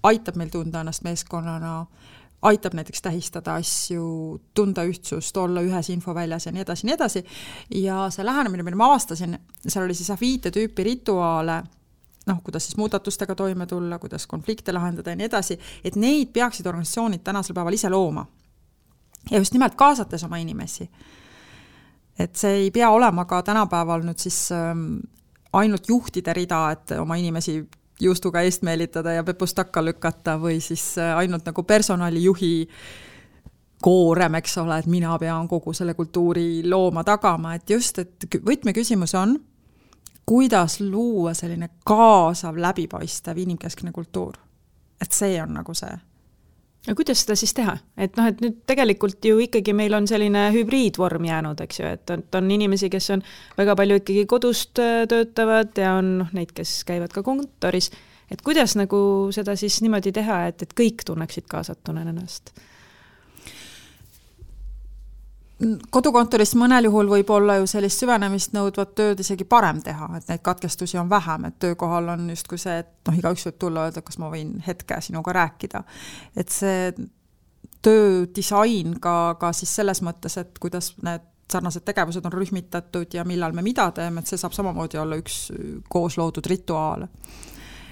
aitab meil tunda ennast meeskonnana, aitab näiteks tähistada asju, tunda ühtsust, olla ühes infoväljas ja nii edasi. Ja see lähenemine, mida ma avastasin, seal oli siis 5 tüüpi rituaale, kuidas siis muudatustega toime tulla, kuidas konflikte lahendada ja nii edasi, et neid peaksid organisatsioonid tänasel päeval ise looma. Ja just nimelt kaasates oma inimesi. Et see ei pea olema ka tänapäeval nüüd siis ainult juhtide rida, et oma inimesi juustuga eest meelitada ja pepust takka lükata või siis ainult nagu personalijuhi koorem, eks ole, et mina pean kogu selle kultuuri looma tagama, et just, et võtmeküsimus on, kuidas luua selline kaasav, läbipaistev inimkeskne kultuur. Et see on nagu see. Ja kuidas seda siis teha? Et nüüd tegelikult ju ikkagi meil on selline hübriidvorm jäänud, eks ju, et on inimesi, kes on väga palju ikkagi kodust töötavad ja on neid, kes käivad ka kontoris. Et kuidas nagu seda siis niimoodi teha, et kõik tunneksid kaasatuna ennast? Kodukontoris mõnel juhul võib olla ju sellist süvenemist nõudvat tööd isegi parem teha, et neid katkestusi on vähem, et töökohal on just kui see, et igaüks võib tulla öelda, kas ma võin hetke sinuga rääkida. Et see töödisain ka siis selles mõttes, et kuidas need sarnased tegevused on rühmitatud ja millal me mida teeme, et see saab samamoodi olla üks koos loodud rituaal.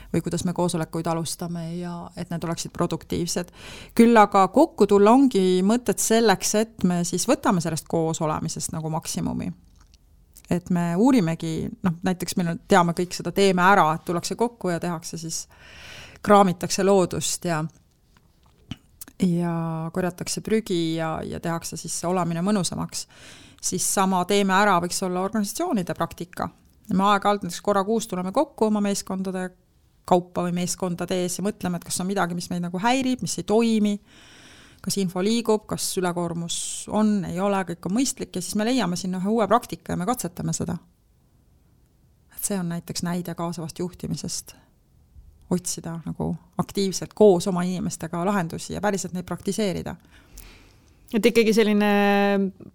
Või kuidas me koosolekuid alustame ja et need oleksid produktiivsed. Küll aga kokku tulla ongi mõtted selleks, et me siis võtame sellest koos olemisest nagu maksimumi. Et me uurimegi, näiteks meil teame kõik seda teeme ära, et tullakse kokku ja tehakse siis, kraamitakse loodust ja ja korjatakse prügi ja tehakse siis see olamine mõnusamaks, siis sama teeme ära võiks olla organisatsioonide praktika. Me aeg-ajalt näiteks korra kuus tuleme kokku oma meeskondade kaupa või meeskondade ees ja mõtleme, et kas on midagi, mis meid nagu häirib, mis ei toimi, kas info liigub, kas ülekoormus on, ei ole, kõik on mõistlik ja siis me leiame sinna ühe uue praktika ja me katsetame seda. Et see on näiteks näide kaasavast juhtimisest. Otsida nagu aktiivselt koos oma inimestega lahendusi ja päriselt neid praktiseerida. Et ikkagi selline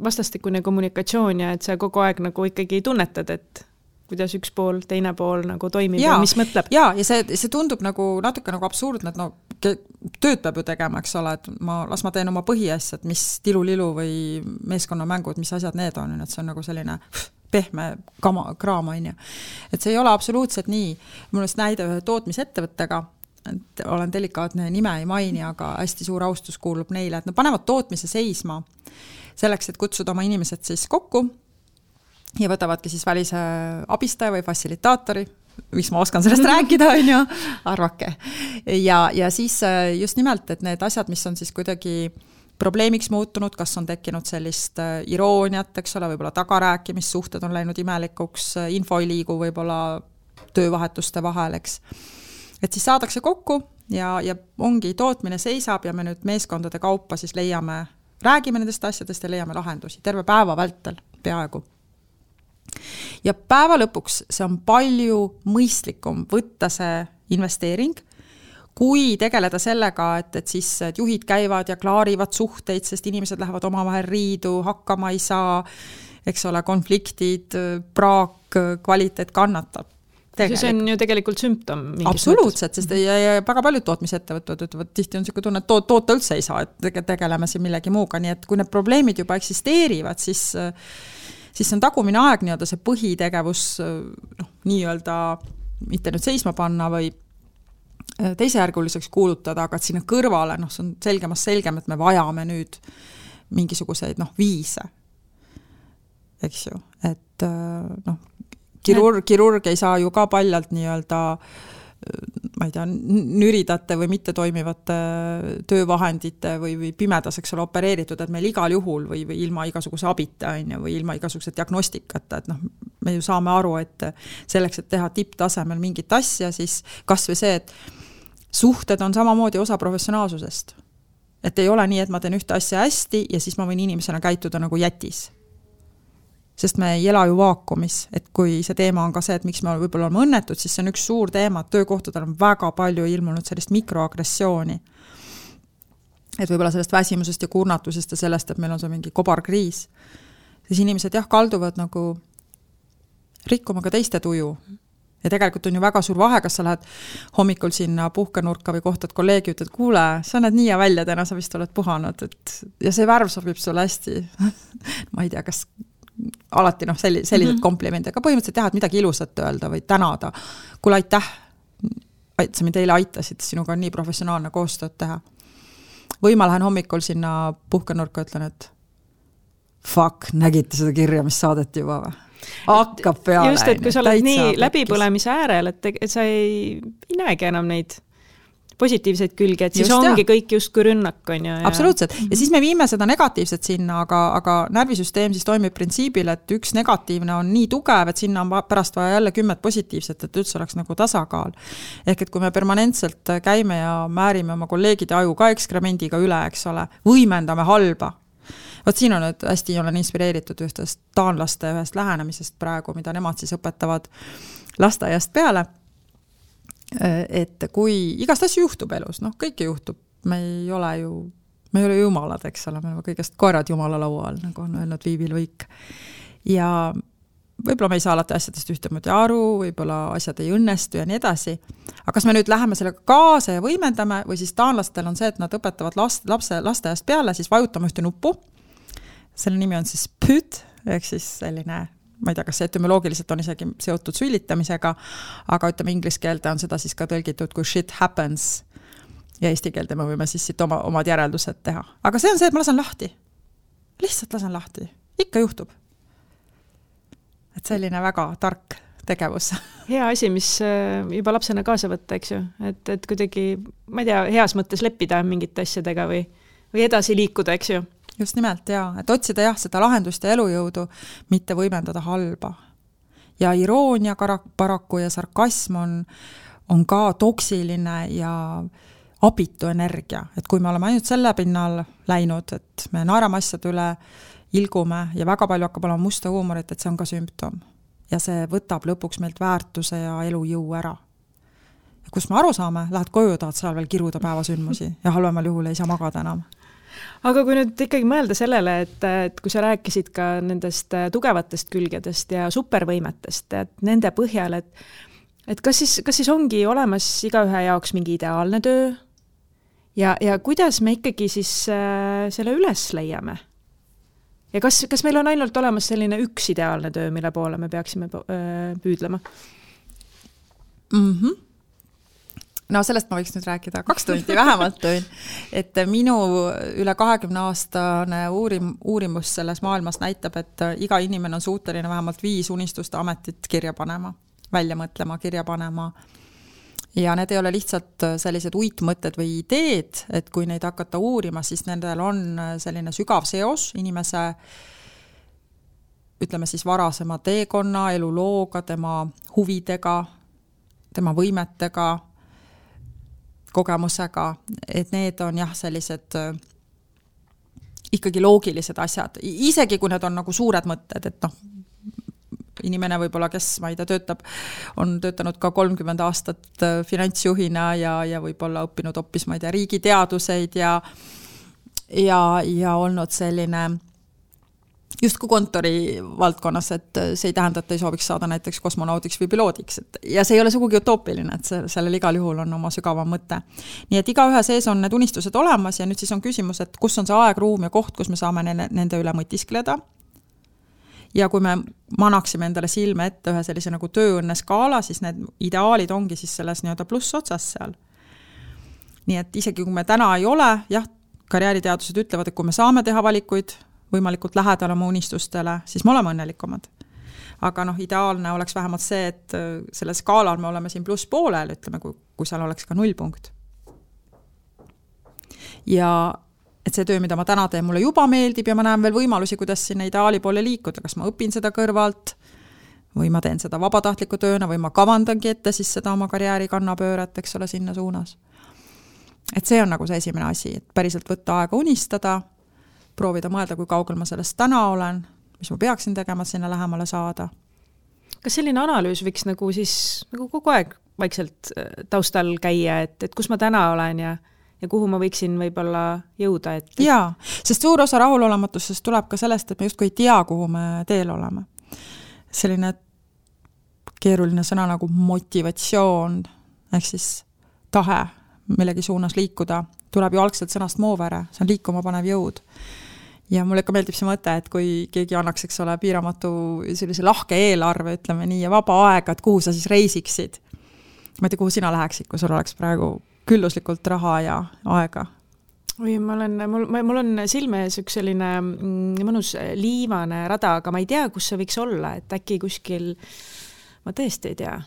vastastikune kommunikatsioon ja et sa kogu aeg nagu ikkagi tunnetad, et kuidas üks pool, teine pool nagu toimib ja mis mõtleb. Ja see tundub nagu natuke nagu absurdne, et no tööd peab ju tegema, eks ole, et las ma teen oma põhiasjad, mis tilulilu või meeskonnamängud, mis asjad need on, et see on nagu selline pehme kraam, on ju. Et see ei ole absoluutselt nii. Mul on näide ühe tootmisettevõttega, et olen delikaatne nime ei maini, aga hästi suur austus kuulub neile, et nad panevad tootmise seisma selleks, et kutsuda oma inimesed siis kokku ja võtavadki siis välise abistaja või fassilitaatori, miks ma oskan sellest rääkida, on ju, arvake. Ja siis just nimelt, et need asjad, mis on siis kuidagi probleemiks muutunud, kas on tekkinud sellist irooniat, eks ole, võib-olla tagarääkimissuhted on läinud imelikuks, info ei liigu võib-olla töövahetuste vahel, eks. Et siis saadakse kokku ja ongi tootmine seisab ja me nüüd meeskondade kaupa siis räägime nendest asjadest ja leiame lahendusi terve päeva vältel peaaegu. Ja päeva lõpuks see on palju mõistlikum võtta see investeering, kui tegeleda sellega, et siis et juhid käivad ja klaarivad suhteid, sest inimesed lähevad omavahel riidu, hakkama ei saa, eks ole, konfliktid, praak, kvaliteet kannatab. See on ju tegelikult sümptom. Absoluutselt, sest ja väga paljud tootmisettevõtted ütlevad, tihti on selline tunne, et toota üldse ei saa, et tegeleme siin millegi muuga, nii et kui need probleemid juba eksisteerivad, siis on tagumine aeg nii-öelda see põhitegevus nii-öelda mitte nüüd seisma panna või teisejärguliseks kuulutada, aga et sinna kõrvale, see on selgem, et me vajame nüüd mingisuguseid viise. Eks ju, et kirurg ei saa ju ka paljalt nii-öelda ma ei tea, nüridate või mitte toimivate töövahendite või pimedas, eks ole, opereeritud, et meil igal juhul või ilma igasuguse abita või ilma igasuguse diagnostikata, et me ju saame aru, et selleks, et teha tipptasemel mingit asja, siis kas või see, et suhted on samamoodi osa professionaalsusest. Et ei ole nii, et ma teen ühte asja hästi ja siis ma võin inimesena käituda nagu jätis. Sest me ei ela ju vaakumis, et kui see teema on ka see, et miks me võib-olla oleme õnnetud, siis see on üks suur teema, et töökohtadel on väga palju ilmunud sellist mikroagressiooni. Et võib-olla sellest väsimusest ja kurnatusest ja sellest, et meil on see mingi kobarkriis. Siis inimesed kalduvad nagu rikkuma ka teiste tuju. Ja tegelikult on ju väga suur vahe, kas sa lähed hommikul sinna puhkenurka või kohtad kolleegi, ütled, kuule, sa näed nii ja välja, täna sa vist oled puhanud. Ja see värv sobib sulle hästi. Ma ei tea, kas alati sellised komplimendid, aga põhimõtteliselt jah, et midagi ilusat öelda või tänada. Kuule, aitäh, sa mind eile aitasid, sinuga on nii professionaalne koostööd teha. Või ma lähen hommikul sinna puhkenurka ja ütlen, et fuck, nägite seda kirja, mis saadeti juba või? Hakkab peale. Just, et kui sa oled nii läbipõlemise äärel, et sa ei näegi enam neid positiivseid külgi, et siis just, ongi kõik justkui rünnak. On ju, absoluutselt. Ja siis me viime seda negatiivset sinna, aga närvisüsteem siis toimib printsiibil, et üks negatiivne on nii tugev, et sinna on pärast vaja jälle 10 positiivset, et üldse oleks nagu tasakaal. Ehk et kui me permanentselt käime ja määrime oma kolleegide aju ka ekskremendiga üle, eks ole, võimendame halba. Võt siin on nüüd hästi olen inspireeritud ühtest taanlaste ühest lähenemisest praegu, mida nemad siis õpetavad lasteaiast peale. Et kui igast asju juhtub elus, kõike juhtub, me ei ole jumalad, eks ole, me oleme kõigest koerad jumala laua all, nagu on öelnud Viivi Luik. Ja võib-olla me ei saa alati asjadest ühtemoodi aru, võib-olla asjad ei õnnestu ja nii edasi. Aga kas me nüüd läheme sellega kaasa ja võimendame või siis taanlastel on see, et nad õpetavad lasteaiast peale, siis vajutame ühte nuppu. Selle nimi on siis püt, ehk siis selline, ma ei tea, kas see etümoloogiliselt on isegi seotud sülitamisega, aga ütleme inglise keelde on seda siis ka tõlgitud kui shit happens ja eesti keelde me võime siis siit omad järeldused teha. Aga see on see, et ma lasen lahti. Lihtsalt lasen lahti. Ikka juhtub. Et selline väga tark tegevus. Hea asi, mis juba lapsena kaasa võtta, eks ju, et kuidagi, ma ei tea, heas mõttes leppida mingite asjadega või edasi liikuda, eks ju. Just nimelt, et otsida seda lahendust ja elujõudu, mitte võimendada halba. Ja iroonia paraku ja sarkasm on ka toksiline ja abitu energia, et kui me oleme ainult selle pinnal läinud, et me naerame asjade üle, ilgume ja väga palju hakkab olema musta huumorit, et see on ka sümptom. Ja see võtab lõpuks meilt väärtuse ja elujõu ära. Ja kus me aru saame, lähed koju, tahad seal veel kiruda päevasündmusi ja halvemal juhul ei saa magada enam. Aga kui nüüd ikkagi mõelda sellele, et kui sa rääkisid ka nendest tugevatest külgedest ja supervõimetest, et nende põhjal, et kas siis ongi olemas igaühe jaoks mingi ideaalne töö ja kuidas me ikkagi siis selle üles leiame? Ja kas meil on ainult olemas selline üks ideaalne töö, mille poole me peaksime püüdlema? No sellest ma võiks nüüd rääkida 2 tundi vähemalt tööin, et minu üle 20-aastane uurimus selles maailmas näitab, et iga inimene on suuteline vähemalt 5 unistuste ametit kirja panema, välja mõtlema, kirja panema. Ja need ei ole lihtsalt sellised uitmõtted või ideed, et kui neid hakata uurima, siis nendel on selline sügav seos inimese, ütleme siis varasema teekonna, elulooga, tema huvidega, tema võimetega, kogemusega, et need on sellised ikkagi loogilised asjad. Isegi kui need on nagu suured mõtted, et inimene võib-olla, kes, ma ei tea, on töötanud ka 30 aastat finantsjuhina ja võib-olla õppinud hoopis, ma ei tea, riigiteaduseid ja olnud selline justkui kontori valdkonnas, et see ei tähenda, et ei sooviks saada näiteks kosmonaudiks või piloodiks. Ja see ei ole sugugi utoopiline, et sellel igal juhul on oma sügavam mõte. Nii et igaühe sees on need unistused olemas ja nüüd siis on küsimus, et kus on see aeg, ruum ja koht, kus me saame nende üle mõtiskleda. Ja kui me manaksime endale silme ette ühe sellise nagu tööõnne skaala, siis need ideaalid ongi siis selles nii-öelda pluss otsas seal. Nii et isegi kui me täna ei ole, karjääriteadused ütlevad, et kui me saame teha valikuid võimalikult lähedal oma unistustele, siis me oleme õnnelikumad. Aga ideaalne oleks vähemalt see, et selle skaalal me oleme siin pluss poolel, ütleme, kui seal oleks ka 0 punkt. Ja et see töö, mida ma täna teen, mulle juba meeldib ja ma näen veel võimalusi, kuidas sinna ideaali poole liikuda, kas ma õpin seda kõrvalt või ma teen seda vabatahtliku tööna või ma kavandangi ette siis seda oma karjääri kannapööret, eks ole, sinna suunas. Et see on nagu see esimene asi, et päriselt võtta aega unistada, proovida mõelda, kui kaugel ma sellest täna olen, mis ma peaksin tegema, sinna lähemale saada. Kas selline analüüs võiks nagu siis nagu kogu aeg vaikselt taustal käia, et kus ma täna olen ja kuhu ma võiksin võib-olla jõuda? Jaa, sest suur osa rahulolematusest tuleb ka sellest, et me justkui ei tea, kuhu me teel oleme. Selline keeruline sõna nagu motivatsioon, ehk siis tahe millegi suunas liikuda, tuleb ju algselt sõnast moovere, see on liikuma panev jõud. Ja mulle ikka meeldib see mõte, et kui keegi annaks, eks ole, piiramatu sellise lahke eelarve, ütleme nii, ja vaba aega, et kuhu sa siis reisiksid. Ma ei tea, kuhu sina läheksid, kui sul oleks praegu külluslikult raha ja aega? Või mul on silme ees üks selline mõnus liivane rada, aga ma ei tea, kus see võiks olla, et äkki kuskil, ma tõesti ei tea,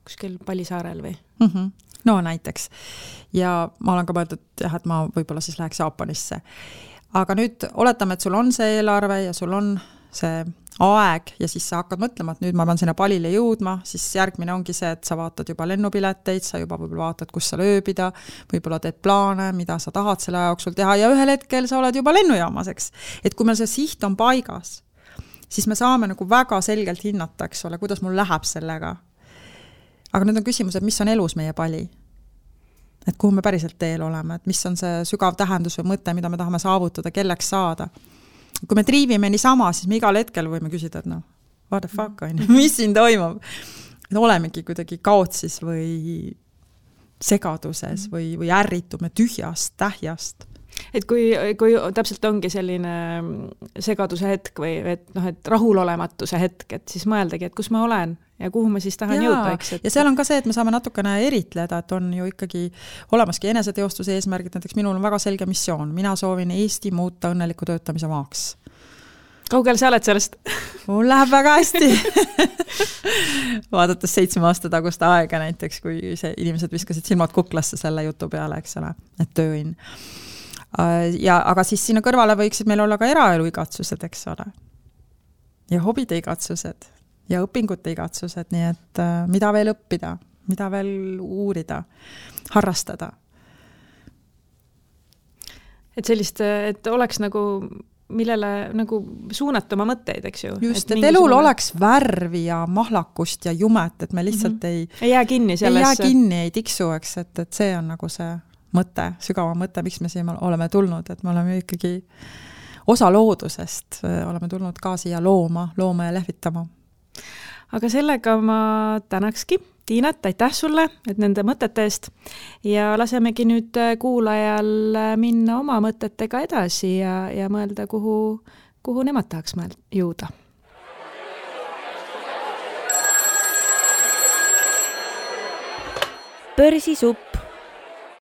kuskil Palisaarel või? No näiteks. Ja ma olen ka mõeldud, et ma võib-olla siis läheks Jaapanisse. Aga nüüd oletame, et sul on see eelarve ja sul on see aeg ja siis sa hakkad mõtlema, et nüüd ma pean sinna Palile jõudma, siis järgmine ongi see, et sa vaatad juba lennupileteid, sa juba võib-olla vaatad, kus sa ööbida, võib-olla teed plaane, mida sa tahad selle aja jooksul teha ja ühel hetkel sa oled juba lennujaamas, eks. Et kui meil see siht on paigas, siis me saame nagu väga selgelt hinnata, eks ole, kuidas mul läheb sellega. Aga nüüd on küsimus, et mis on elus meie pali? Et kuhu me päriselt teel oleme, et mis on see sügav tähendus või mõte, mida me tahame saavutada, kelleks saada. Kui me triivime niisama, siis me igal hetkel võime küsida, et what the fuck on, mis siin toimub? Et olemegi kuidagi kaotsis või segaduses või ärritume tühjast, tähjast. Et kui täpselt ongi selline segaduse hetk või et rahulolematuse hetk, et siis mõeldagi, et kus ma olen ja kuhu ma siis tahan jõuda. Ja seal on ka see, et me saame natukene eritleda, et on ju ikkagi olemaski eneseteostuse eesmärgid, näiteks minul on väga selge missioon. Mina soovin Eesti muuta õnneliku töötamise maaks. kaugel sa oled sellest? Mul läheb väga hästi. Vaadates 7 aasta taguste aega näiteks, kui inimesed viskasid silmad kuklasse selle jutu peale, eks ole, et tööin. Aga siis sinna kõrvale võiksid meil olla ka eraelu igatsused, eks ole. Ja hobide igatsused ja õpingute igatsused, nii et mida veel õppida, mida veel uurida, harrastada. Et sellist, et oleks nagu millele nagu suunata oma mõtteid, eks ju. Just, et elul oleks värvi ja mahlakust ja jumet, et me lihtsalt ei jää kinni sellesse. Ei tiksu, eks, et see on nagu see mõte, sügava mõte, miks me siia oleme tulnud, et me oleme ikkagi osa loodusest, oleme tulnud ka siia looma ja lehvitama. Aga sellega ma tänakski Tiinat, aitäh sulle, et nende mõtete eest ja lasemegi nüüd kuulajal minna oma mõtetega edasi ja mõelda, kuhu nemad tahaks jõuda. Börsisupp